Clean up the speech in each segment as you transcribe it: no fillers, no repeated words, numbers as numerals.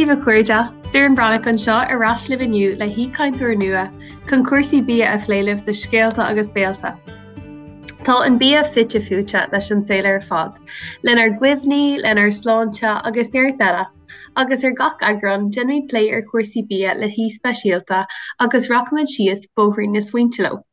Dia daoibh a chairde, Doireann Breathnach anseo ar ais libh inniu le haoichainteoir nua chun cúrsaí bia a phlé libh do Scéalta agus Béalta. Tá an bia fite fuaite leis an saol ar fad, lenár gcuimhní, lenár sláinte agus neart eile, agus ar gach eagrán déanaimid plé ar chúrsaí bia le haoi speisialta agus rachaimid síos bóithrín na smaointe leo.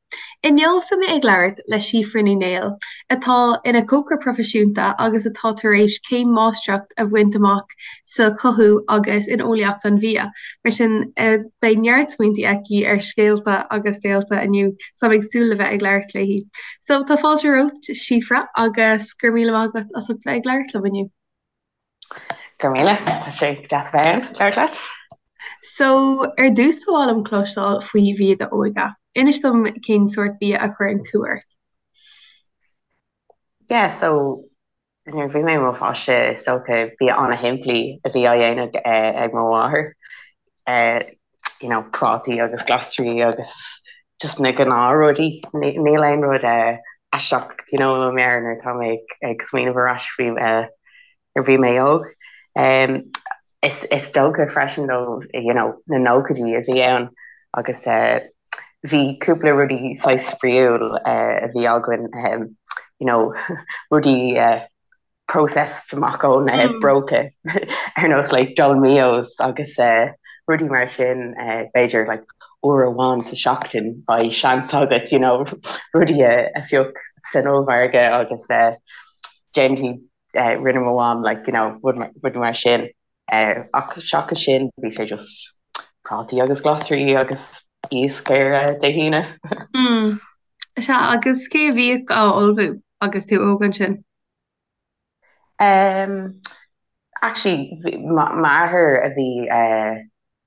Inniu beidh mé ag labhairt le Síofra Ní Néill, atá ina cócaire proifisiúnta agus atá tar éis céim máistreacht a bhaint amach sa chothú agus in eolaíocht an bhia. Mar sin, beidh neart smaointe aici ar scéalta agus béalta inniu, so táim ag súil le bheith ag labhairt léi. So, tá fáilte romhat, Síofra, agus go raibh míle maith agat as ucht bheith ag labhairt liom inniu. Go raibh míle, tá sé deas a bheith ann, labhairt leat. So, ar dtús ba mhaith liom cloisteáil faoi bhia d'óige. Inis dom cén sórt bia a chuireann cumha ort. Yeah, so, nuair a bhí mé i mo pháiste, is dócha bia an-shimplí a bhí á dhéanamh ag mo mháthair. You know, prátaí agus glasraí agus just na gnáthrudaí. Níl aon rud aisteach, you know, i mo mheabhair nuair atá mé ag smaoineamh ar ais faoi nuair a bhí mé óg. Is is dócha freisin though, you know, na nóchaidí a bhí ann agus bhí cúpla rudaí saghas spraíúil a bhí againn, you know, rudaí processed amach ón bróca ar nós like Dolmio's agus rudaí mar sin b'fhéidir like uair amháin sa seachtain beidh seans agat you know rudaí a phioc san ollmhargadh agus déanfaidh rinne mo mham like you know rudaí mar sin ach seachas sin bhí sé just prátaí agus glasraí agus iasc ar Dé hAoine. Sea, agus cé a bhíodh á ullmhú agus tú óg ansin? Um, actually, m'athair a bhí uh,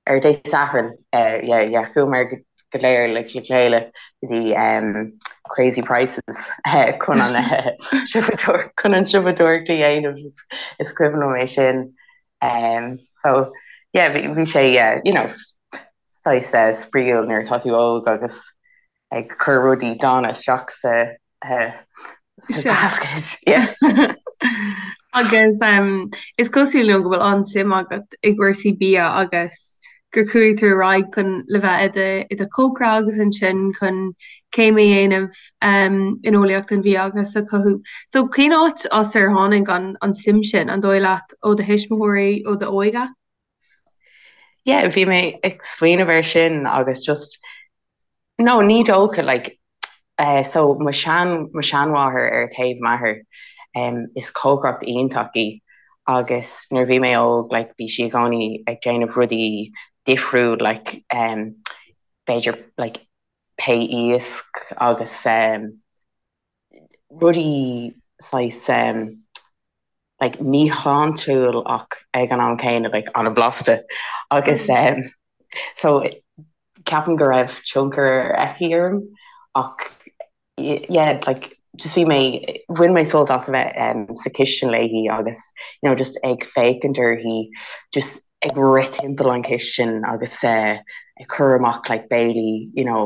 ar Dé Sathairn, uh, yeah, yeah, chuamar go léir le le chéile go dtí um, Crazy Prices uh, chun an uh, chun an siopadóireacht a dhéanamh is, is cuimhin liom é sin. Um, so, yeah, bhí, bhí sé, uh, you know, saghas uh, spraíúil nuair atá tú óg agus ag cur rudaí dána isteach sa sa basket. Yeah. Agus um, is cosúil liom go bhfuil an-suim agat i gcúrsaí bia agus gur chuaigh tú ar aghaidh chun le bheith i do, i do chócaire agus ansin chun céim a dhéanamh um, in eolaíocht an bhia agus sa chothú. So cén áit as ar tháinig an, an suim sin, an dóigh leat, ó do thuismitheoirí, ó d'óige? Yeah, bhí mé ag smaoineamh air sin agus just no ní dócha like eh, so mo shean mo sheanmháthair ar taobh m'athar um, is cócaireacht iontach í agus nuair a bhí mé óg like bhí sí i gcónaí ag déanamh rudaí difriúil like um, b'fhéidir like pé iasc agus um, rudaí saghas um, like míshláintiúil ach ag an am céanna like an-bhlasta agus um, so ceapaim go raibh tionchar aici orm ach yeah like just bhí mé bhain mé sult as a bheith um, sa chistin léi agus you know just ag féachaint uirthi just ag rith timpeall an chistin agus uh, ag cur amach like béilí you know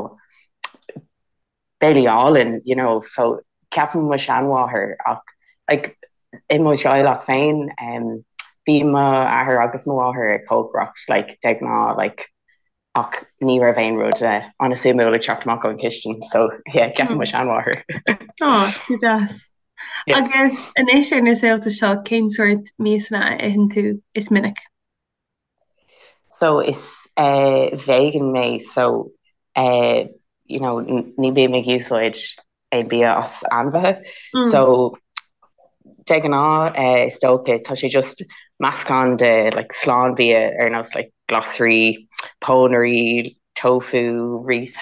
béilí álainn, you know, so ceapaim mo sheanmháthair ach like i mo theaghlach féin um, bhí mo athair agus mo mháthair ag cócaireacht like de ghnáth like ach ní raibh aon rud uh, an-suimiúil ag teacht amach ón chistin so yeah ceapaim mo sheanmháthair. Oh, go deas. Yeah. Agus anois ar na saolta seo cén sórt miasanna a itheann tú is minic? So is eh vegan mé so eh you know ní bím ag úsáid aon bia as ainmhithe so de ghnáth eh is dócha tá sé just meascán de like slánbhia ar nós like glasraí, pónairí, tofu, rís,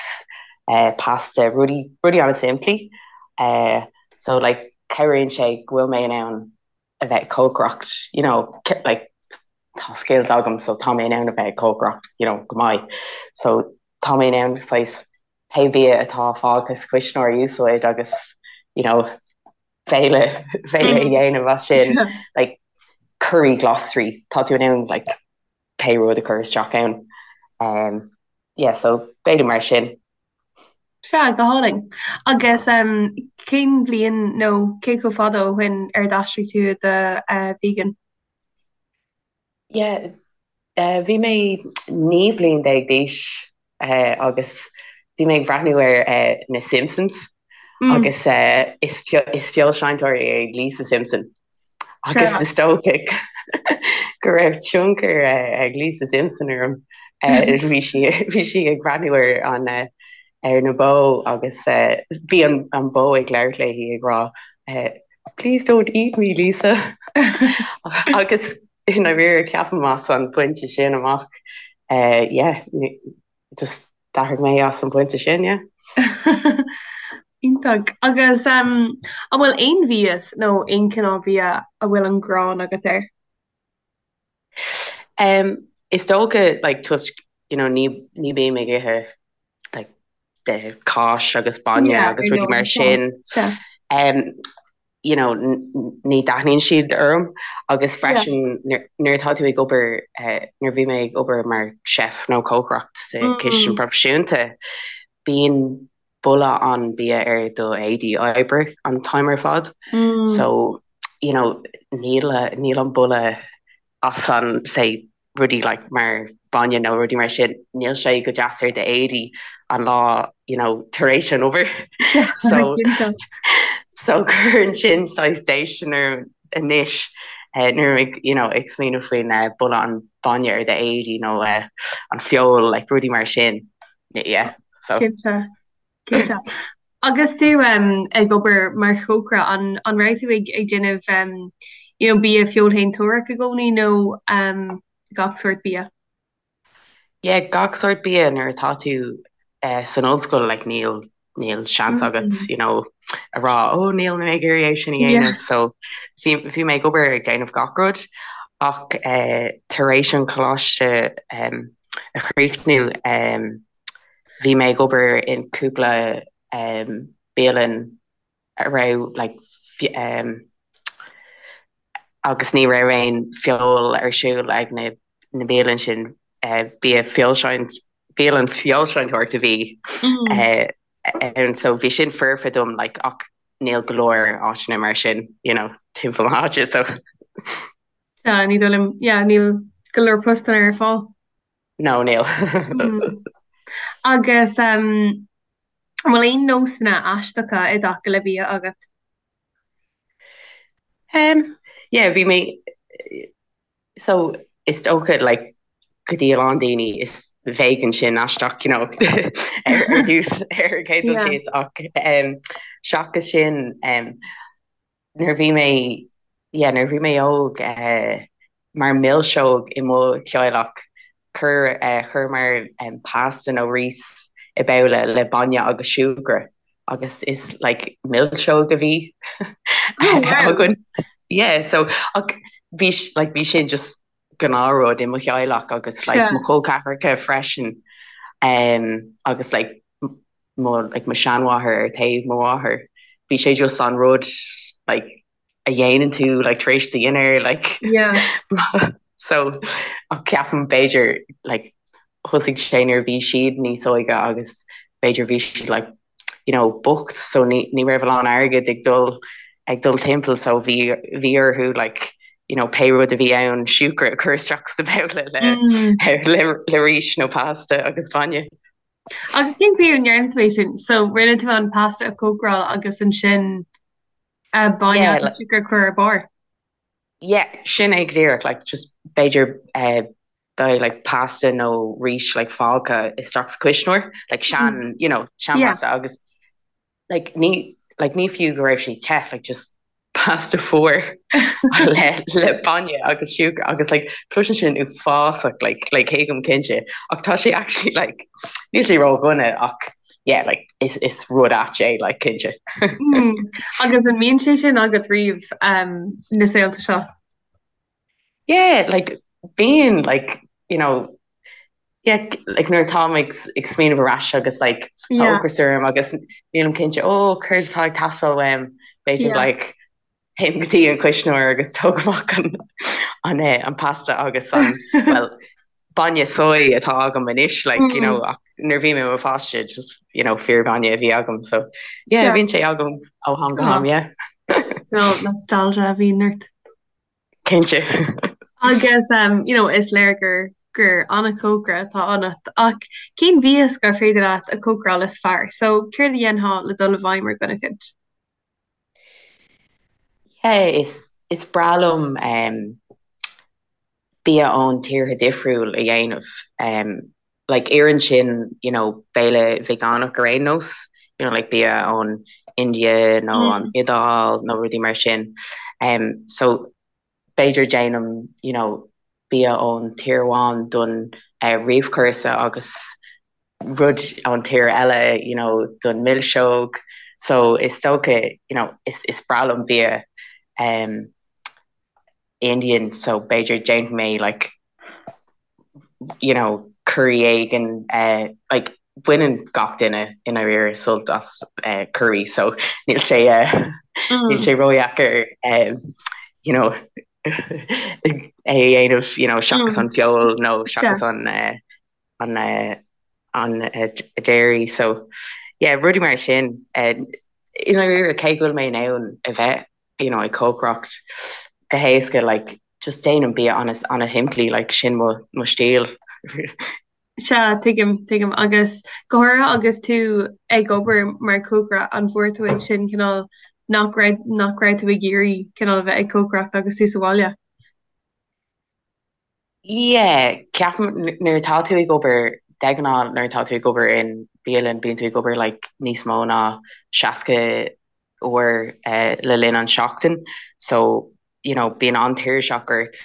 eh pasta, rudaí rudaí an-simplí eh so like cabhraíonn sé go bhfuil mé in ann a bheith ag cócaireacht you know like tá skills agam so tá mé in ann a bheith ag cócaireacht you know go maith so tá mé in ann saghas pé bia atá fágtha sa chuisneoir a úsáid agus you know béile béile a dhéanamh as sin like curry glasraí tá tú in ann like pé rud a chur isteach ann. Um, yeah, so béile mar sin. Sea, go hálainn. Agus um, cén bhliain nó cé chomh fada ó shin ar d'aistrigh tú i do uh, vegan? Yeah, Bhí mé 19 bliain d'aois agus bhí mé ag breathnú ar na Simpsons agus is feoilséantóir é Lisa Simpson agus is dócha go raibh tionchar ag Lisa Simpson orm. Bhí sí bhí sí ag breathnú ar an ar na bó agus bhí an bó ag labhairt léi ag rá Please don't eat me, Lisa. Agus i ndáiríre ceapaim as an bpointe sin amach yeah just d'athraigh mé as an bpointe sin yeah. Iontach. Agus an bhfuil aon mhias nó aon chineál bia a bhfuil an ghráin agat air? Um, is dócha like toisc you know ní ní bím ag ithe like de cáis agus bainne Yeah, agus ar rudaí mar ndóigh. sin. Sea. Um, you know, ní thaitníonn siad orm agus freisin nuair atá tú ag obair, nuair a bhí mé ag obair mar chef nó cócaireacht sa chistin proifisiúnta, bíonn boladh an bia ar do éadaí oibre an t-am ar fad. So, you know, níl níl an boladh as an, say, rudaí like mar bainne nó rudaí mar sin, níl sé go deas ar d'éadaí an lá you know tar éis an obair. So so cuireann sin saghas déistin orm anois eh, nuair ag you know ag smaoineamh faoin eh, boladh an bainne ar d'éadaí nó eh, an feoil like rudaí mar sin. Yeah, so. Cinnte. Cinnte. Agus tú ag obair mar chócaire, an an raibh tú ag ag déanamh um, you know, bia feoilshéantóireach i gcónaí nó um, gach sórt bia? Yeah, gach sórt bia nuair atá tú uh, san ollscoil like, níl níl seans agat mm. you know, a rá ó oh, níl mé ag iarraidh é sin a dhéanamh yeah. so bhí bhí mé ag obair ag déanamh gach rud ach uh, tar éis an coláiste um, a chríochnú um, Bhí mé ag obair in cúpla bialann a raibh like agus ní raibh aon feoil ar siúl ag na na bialann sin bia feoilséant bialann feoilséantóireacht a bhí ann so bhí sin foirfe dom like ach níl go leor áiteanna mar sin you know timpeall na háite so. Sea, ní dóigh liom, yeah, níl go leor postanna ar fáil. No, níl. Agus an bhfuil aon nósanna aisteacha i dtaca le bia agat? Um, yeah, bhí mé so is dócha like go dtí a lán daoine is vegan sin aisteach, you know, ar ar dtús ar an chéad dul síos ach um, seachas sin um, Nuair a bhí mé, yeah, nuair a bhí mé óg, mar milseog i mo theaghlach, chuir, chuireamar pasta nó rís i babhla le bainne agus siúcra agus is like milseog a bhí againn. Yeah, so ach bhí, like bhí sin just gnáthrud i mo theaghlach agus like mo chol ceathracha freisin agus like mo like mo sheanmháthair ar taobh mo mháthar bhí sé just an rud like a dhéanann tú like tar éis do dhinnéir like yeah so ach ceapaim b'fhéidir like thosaigh sé nuair a bhí siad níos óige agus b'fhéidir bhí siad like you know bocht so ní ní raibh a lán airgid ag dul ag dul timpeall so bhí bhí orthu like you know pé rud a bhí ann siúcra a chur isteach sa babhla le mm. le le rís nó pasta agus bainne. Agus cén chaoi a ndearna tú é sin? So rinne tú an pasta a chócaráil agus ansin bainne Yeah, agus siúcra a chur ar barr? Yeah, sin é go díreach, like just b'fhéidir eh, beidh like pasta nó rís like fágtha isteach sa chuisneoir, like sean, you know, sean Yeah. pasta agus like ní like ní fiú go raibh sé te like just pasta fuar le le bainne agus siúcra agus like cloiseann sin uafásach like like tuigim cinnte ach tá sé actually like níl sé ródhona ach yeah like is is rud ait é like cinnte. Mm. Agus an mbíonn sé sin agat riamh um, na saolta seo? Yeah, like bíonn like you know yeah like nuair atáim ag ag smaoineamh ar ais agus like tá Yeah. ocras orm agus nílim cinnte oh céard atá ag teastáil uaim b'fhéidir Yeah. like téim go dtí an cuisneoir agus tóg amach an an eh, an pasta agus an well bainne soy atá agam anois like you know Mm. ach nuair bhí mé i mo pháiste just you know fíor bhainne a bhí agam so yeah Sea. bíonn sé agam ó ham go Oh, ham yeah. no, nostalgia a bhíonn ort. Cinnte. Agus um, you know, is léir gur gur an-chócaire atá ionat ach cén mhias gur féidir leat a chócaráil is fearr? So céard a dhéanfá le dul i bhfeidhm ar dhuine eicint? Yeah, is is breá liom um, bia ón tíortha difriúil a dhéanamh. Um, like iarrann sin, you know, béile veigeánach ar aon nós, you know, like bia ón India nó an Iodáil nó rudaí mar sin. Um, so b'fhéidir déanaim, you know, bia ón tír amháin don uh, réamhchúrsa agus rud ón tír eile, you know, don milseog. So is dócha, you know, is, is breá liom bia um, Indian, so b'fhéidir déanfaidh mé like, you know, curry éigin, uh, like, baineann gach duine i ndáiríre sult as uh, curry, so níl sé uh, níl sé ródheacair um, you know, é a dhéanamh, you know, seachas an feoil nó seachas an uh, an uh, an uh, dairy, so yeah, rudaí mar sin uh, i ndáiríre cé go bhfuil mé in ann a bheith you know, ag cócaireacht go héasca, like, just déanaim bia an-shimplí, like, sin mo, mo stíl. Sea, tuigim, tuigim. Agus go háirithe agus tú ag obair mar chócaire, an bhfuair tú ansin cineál nach raibh, nach raibh tú ag iarraidh cineál a bheith ag cócaireacht agus tú sa bhaile? Yeah, ceapaim nuair atá tú ag obair, de ghnáth nuair atá tú ag obair in bialann bíonn tú ag obair like níos mó ná 60 uair eh, le linn an seachtain so you know bíonn an-tuirseach ort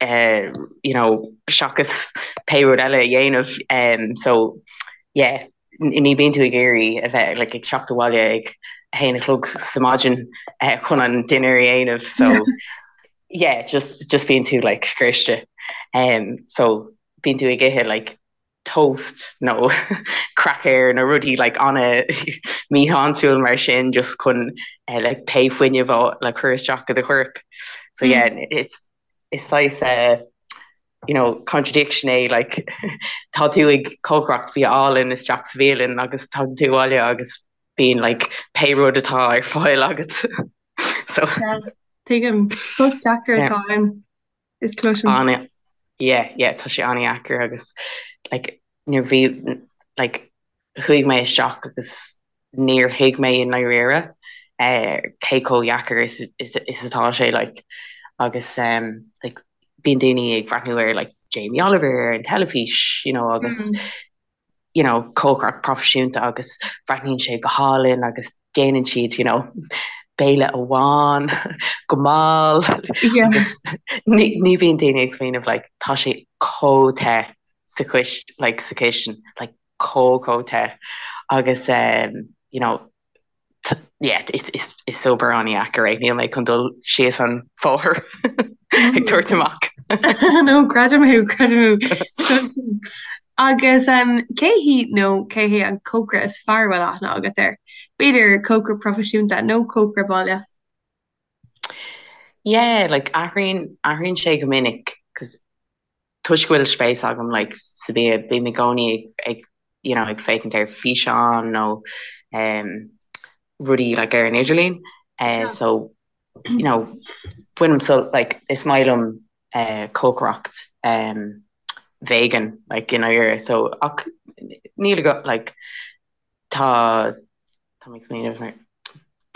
eh, you know seachas pé rud eile a dhéanamh um, so yeah ní bíonn tú ag iarraidh a bheith like ag teacht abhaile ag a haon a chlog sa maidin eh, chun an dinnéar a dhéanamh so yeah just just bíonn tú like scriosta um so bíonn tú ag ithe like toast nó cracker nó rudaí like ana míshláintiúil mar sin just chun uh, like pé fuinneamh a le cur isteach i do chorp so yeah it's is saghas uh, you know contradiction é like tá tú ag cócaireacht bia álainn isteach sa bhialann agus tagann tú abhaile agus bíonn like pé rud atá ar fáil agat so Tuigim. Is post deacair atá ann is cloisim. Ana yeah yeah tá sé an-dheacair agus like nuair bhí like chuaigh mé isteach agus níor thuig mé i ndáiríre eh cé chomh dheacair is is is atá sé like agus um like bíonn daoine ag breathnú ar like Jamie Oliver ar an teilifís you know agus mm. you know, cócaireacht proifisiúnta agus breathnaíonn sé go hálainn agus déanann siad, you know, béile amháin go mall agus ní ní bhíonn daoine ag smaoineamh like tá sé chomh te sa chis like sa chistin like chomh chomh te agus um, you know, yeah, is, is, is obair an-dheacair é, níl mé chun dul síos an bóthar ag tabhairt amach. No, creidim thú, creidim thú. Agus um, cé hí nó cé hé an cócaire is fearr a bhfuil aithne agat air? B'fhéidir cócaire proifisiúnta nó cócaire baile? Yeah, like athraíonn, athraíonn sé go minic, 'cause toisc go bhfuil spéis agam like sa bia, bím i gcónaí ag, ag you know, ag féachaint ar físeáin nó um, rudaí like ar an idirlíon. Uh, so, you know, bainim sult like is maith liom uh, cócaireacht um, vegan like i ndáiríre. So ach níl go like Tá, tá mé ag smaoineamh ar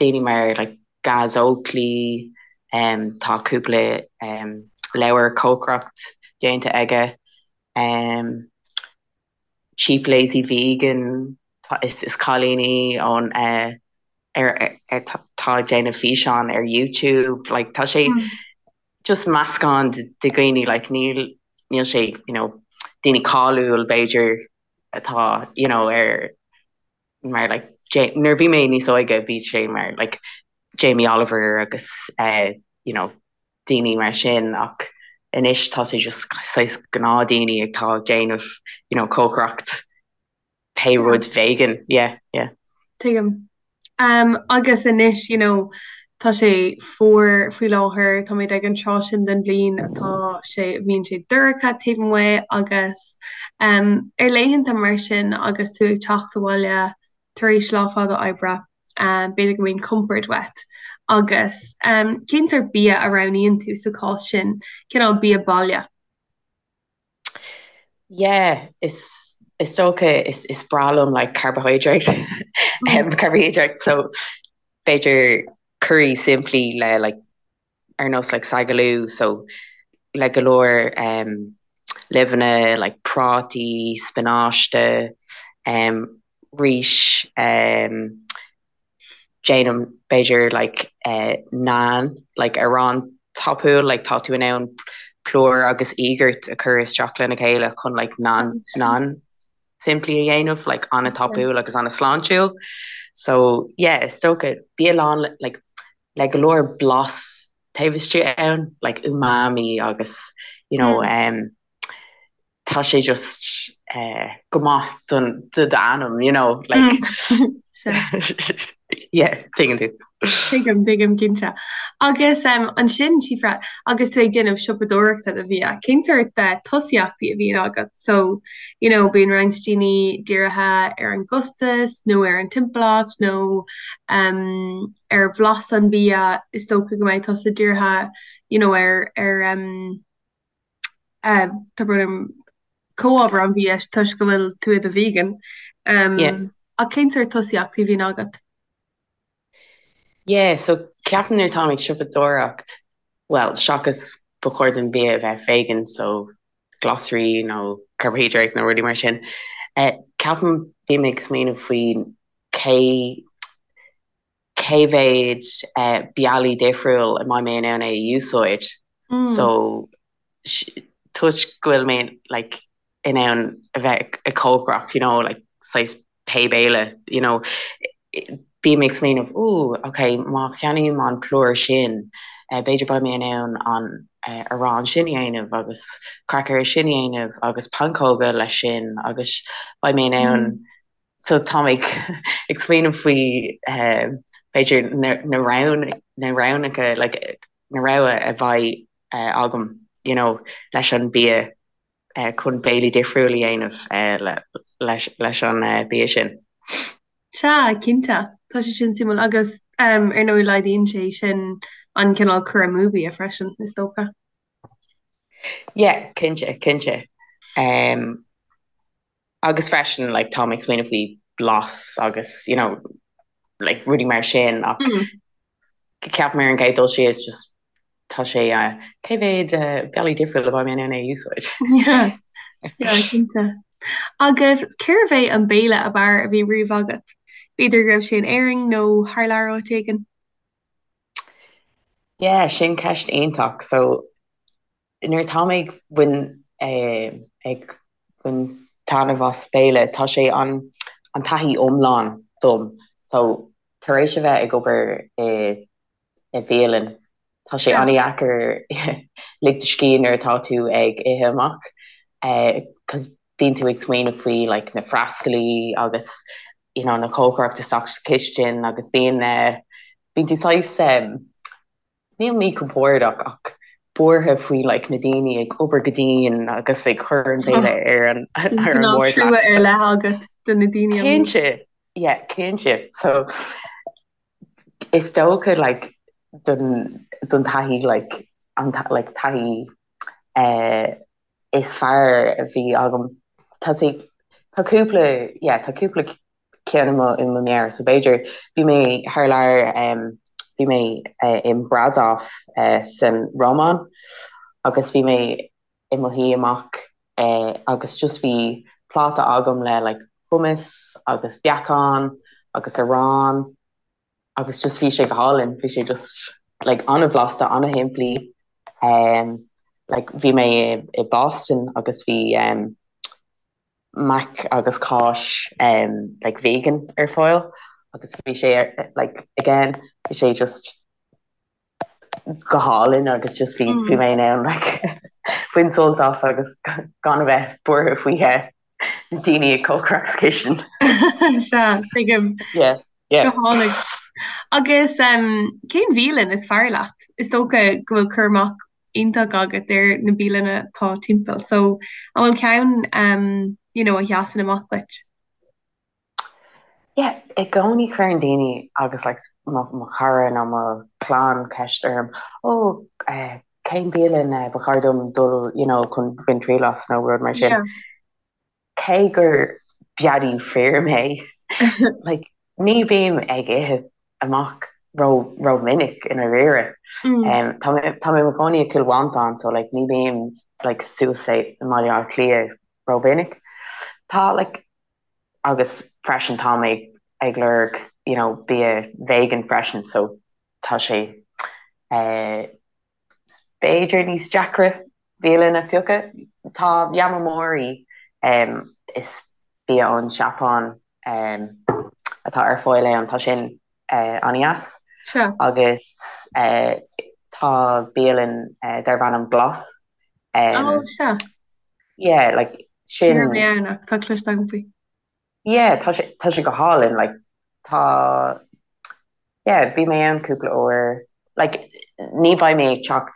daoine mar like Gaz Oakley, um, tá cúpla um, leabhar cócaireacht déanta aige, um, Cheap Lazy Vegan, tá, is, is cailín í ón uh, ar, ar, ar, tá, tá ag déanamh físeán ar YouTube, like tá sé just meascán de, de dhaoine, like níl, níl sé, you know, daoine cáiliúil b'fhéidir atá you know ar mar like nuair a bhí mé níos óige bhí sé mar like Jamie Oliver agus uh, you know daoine mar sin ach anois tá sé just saghas gnáthdhaoine atá ag déanamh you know cócaireacht pé rud vegan yeah yeah. Tuigim. Um, agus anois, you know, tá sé fuar faoi láthair, táimid ag an tráth sin den bhliain atá sé, bíonn sé dorcha taobh amuigh agus um, ar laethanta mar sin agus tú ag teacht abhaile tar éis lá fada oibre, um, b'fhéidir go mbíonn compord uait. Agus um, cén sórt bia a roghnaíonn tú sa chás sin, cineál bia baile? Yeah, is is dócha is is breá liom like carbohydrate um, carbohydrate so b'fhéidir curry simplí le like ar nós like sagaloo so le go leor um, luibheanna like prátaí, spionáiste, um, rís, um, déanaim b'fhéidir like eh, naan like arán tapúil like tá tú in ann plúr agus íogart a chur isteach lena chéile chun like naan naan simplí a dhéanamh like an-tapúil agus an-sláintiúil. So yeah, is dócha bia lán like le go leor blas taobh istigh ann, like umami agus you know um, tá sé just uh, go maith don do d'anam, you know, like yeah, tuigeann tú. Tuigim, tuigim cinnte. Agus um, ansin Síofra, agus tú ag déanamh siopadóireachta do bhia, cén sórt uh, tosaíochtaí a bhíonn agat? So, you know, bíonn roinnt daoine dírithe ar an gcostas nó ar an timpeallacht nó um, ar bhlas an bhia, is dócha go mbeidh tusa dírithe you know, ar, ar um, uh, tá brón orm, comhábhair an bhia toisc go bhfuil tú i do vegan. Um, Yeah. Ach cén sórt tosaíochtaí a bhíonn agat? Yeah, so ceapaim nuair táim ag siopadóireacht, well, seachas ba chóir don bia a bheith vegan, so glasraí nó carbohydrate nó rudaí mar sin, eh, ceapaim bím ag smaoineamh faoi cé cé mhéad bealaí difriúil a mbeidh mé in ann é a úsáid. So toisc go bhfuil mé like in ann a bheith ag cócaireacht you know like saghas pé béile you know bím ag smaoineamh ooh ok má cheannaím an plúr sin b'fhéidir beidh mé in ann an arán sin a dhéanamh agus craicéir sin a dhéanamh agus pancóga leis sin agus beidh mé in ann So táim ag ag smaoineamh faoi b'fhéidir na na roghnacha like na rogha a bheidh agam you know leis an bia chun béilí difriúil a dhéanamh leis leis an bia sin. Sea, cinnte. Tá sé sin suimiúil agus ar ndóigh laghdaíonn sé sin an cineál cur amú bia freisin, is dócha. Yeah, cinnte, cinnte. Um, Agus freisin like táim ag smaoineamh faoi blas agus you know like rudaí mar sin ach ceapaim ar an gcéad dul síos just tá sé uh, cé mhéad uh, bealaí difriúil a bheidh mé in ann é a úsáid. Yeah, yeah, cinnte. Agus cérbh é an béile ab fhearr a bhí riamh agat? B'fhéidir go raibh sé in Éirinn nó thar lear áit éigin? Yeah, sin ceist iontach. So Nuair atá mé ag bain ag baint taitneamh as béile, tá sé an an taithí iomlán dom. So, tar éis a bheith ag obair i i bhialann, tá sé an-dheacair lig do scíth nuair atá tú ag ithe amach 'cause bíonn tú ag smaoineamh faoi like na freastalaí agus you know na cócaireacht isteach sa chistin agus bíonn bíonn tú saghas Níl míchompordach ach buartha faoi like na daoine ag obair go dian agus ag cur an béile ar an ar an Cineál mbord trua leat. ar leith agat do na daoine amuigh. Cinnte, yeah, cinnte. So is dócha like don don taithí like an like taithí eh is fearr a bhí agam tá sé tá cúpla yeah tá cúpla ceann i mo i mo mheabhair so b'fhéidir bhí mé thar lear um, bhí mé uh, in Brasov uh, san Rómáin agus bhí mé i mo shuí amach uh, agus just bhí pláta agam le like hummus agus beacán agus arán agus just bhí sé go hálainn bhí sé just like an-bhlasta an-shimplí um, like bhí mé i, i Boston agus bhí um, mac agus cáis um like vegan ar fáil agus bhí sé like again bhí sé just go hálainn agus just bhí bhí mé in ann like bain sult as agus gan a bheith buartha faoi na daoine ag cócaireacht sa chistin. Sea, tuigim. Yeah, yeah. Go hálainn. Agus um, cén bhialann is fearr leat? Is dócha go bhfuil cur amach iontach agat ar na bialanna atá timpeall. So, an bhfuil ceann um, you know, a sheasann amach duit? Yeah, i gcónaí cuireann daoine agus like mo, mo chara nó mo chlann ceist orm, oh, eh, cén bialann eh, ba chóir dom dul you know, chun bain triail as nó rud mar sin. Yeah. cé gur beadaí fir mé, like, ní bím ag ithe amach ró ró minic i ndáiríre. Mm. Tá mé tá mé i mo chónaí i Cill Mhantáin so like ní bím like suas i mBaile Átha Cliath ró mhinic. Tá like agus freisin tá mé ag lorg you know bia vegan freisin so tá sé eh b'fhéidir níos deacra bialann a phiocadh. Tá Yamamori, is bia ón Seapáin atá ar fáil ann, tá sin an-deas. Agus tá bialann darb ainm Glas. Oh, sea. Yeah, like sin. Ní raibh mé ann ach tá cloiste agam faoi. Yeah, tá sé, tá sé go hálainn, like, tá, yeah, bhí mé ann cúpla uair, like, ní bheidh mé ag teacht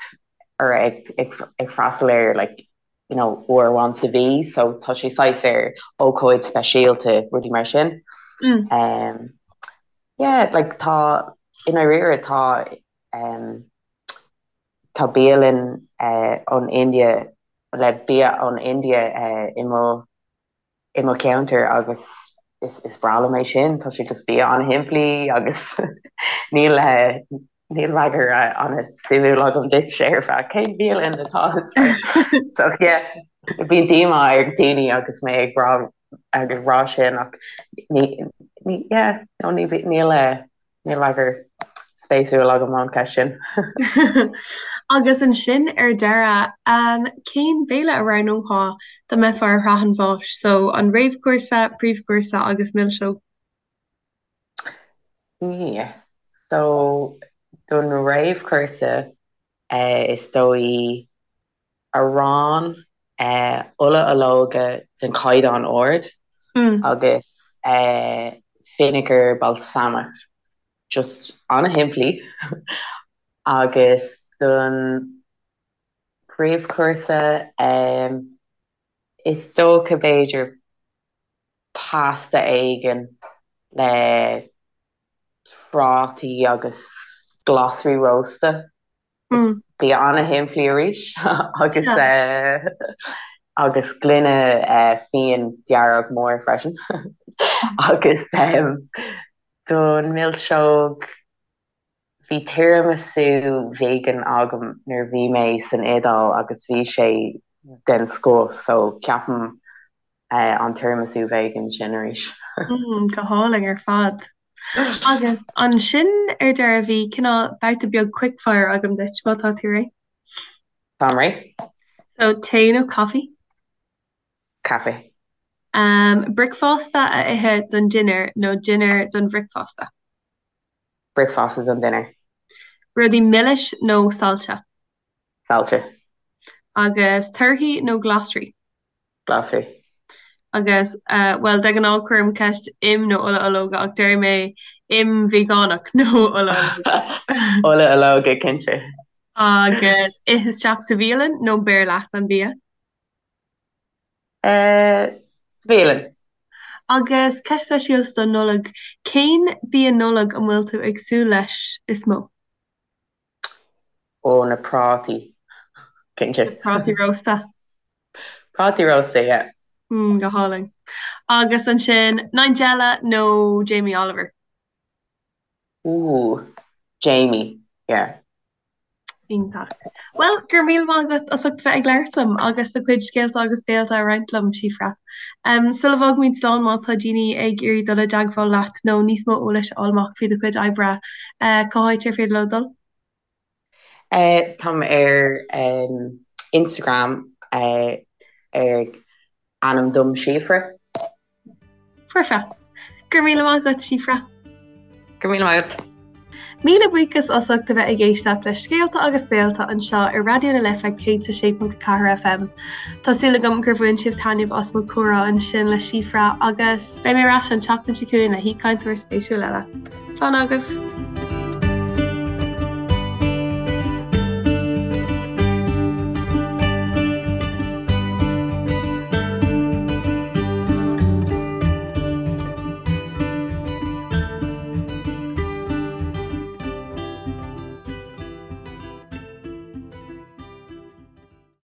or ag, ag, ag freastal air, like, you know, uair amháin sa mhí, so tá sé saghas ar ócáid speisialta, rudaí mar sin. Mm. Um, yeah, like, tá, i ndáiríre, tá, um, tá bialann, eh, ón India, le bia ón India, eh, i mo, i mo cheantar agus is breá liom é sin, tá sé just bia an-shimplí agus níl níl freagra an-suimiúil agam duit ar feadh cén bhialann atá so yeah bíonn díomá ar daoine agus mé ag rá ag rá sin ach ní ní yeah no ní níl Níl freagra spéisiúil agam ón cheist sin. Agus ansin ar deireadh, cén béile a roghnófá dá mbeifeá ar shraith an bháis? So, an réamhchúrsa, príomhchúrsa agus milseog? Yeah. So, don réamhchúrsa, is dóigh arán, ola olóige den chaighdeán ard agus vinegar balsamach. Just an-shimplí. Agus don phríomhchúrsa, is dócha b'fhéidir pasta éigin le prátaí agus glasraí rósta. Bia an-shimplí arís agus agus gloine fíon dearg mór freisin. Agus don mhilseog, bhí tiramisu vegan agam nuair a bhí mé san Iodáil agus bhí sé den scoth so ceapaim an tiramisu vegan sin arís. Go hálainn ar fad. Agus ansin ar deireadh bhí cineál babhta beag quickfire agam duit, má tá tú réidh. Táim réidh. So, tae nó caife? Caife. Um, bricfeasta a ithe don dinnéar nó dinnéar don bhricfeasta? Bricfeasta don dinnéar. Rudaí milis nó saillte? Saillte. Agus torthaí nó glasraí? Glasraí. Agus, bhuel, de ghnáth cuirim ceist im nó ola olóige ach déarfaidh mé im veigeánach nó ola olóige. Ola olóige, cinnte. Agus ith isteach sa bhialann nó beir leat an bia? Sa bhialann. Agus ceist speisialta don Nollaig, cén bia Nollag a bhfuil tú ag súil leis is mó? Ó, na prátaí, cinnte. Na prátaí rósta. Prátaí rósta, yeah. Mm, go hálainn. Agus ansin, Nigella nó Jamie Oliver? Ooh, Jamie, yeah. Iontach. Bhuel, go raibh míle maith agat as ucht bheith ag labhairt liom agus do chuid scéalta agus béalta a roinnt liom, Síofra. Um, sula bhfágaimid slán, má tá daoine ag iarraidh dul i dteagmháil leat nó níos mó eolais a fháil amach faoi do chuid oibre, Cá háit ar féidir leo dul? Táim ar Instagram ag ainm dom Síofra. Foirfe. Go raibh míle maith agat, Síofra. Go raibh míle maith agat. Míle buíochas as ucht a bheith ag éisteacht le Scéalta agus Béalta anseo ar Raidió na Life 106.4 FM. Tá súil agam gur bhain sibh taitneamh as mo chomhrá ansin le Síofra agus beidh mé ar ais an tseachtain seo chugainn le haoichainteoir spéisiúil eile. Slán agaibh!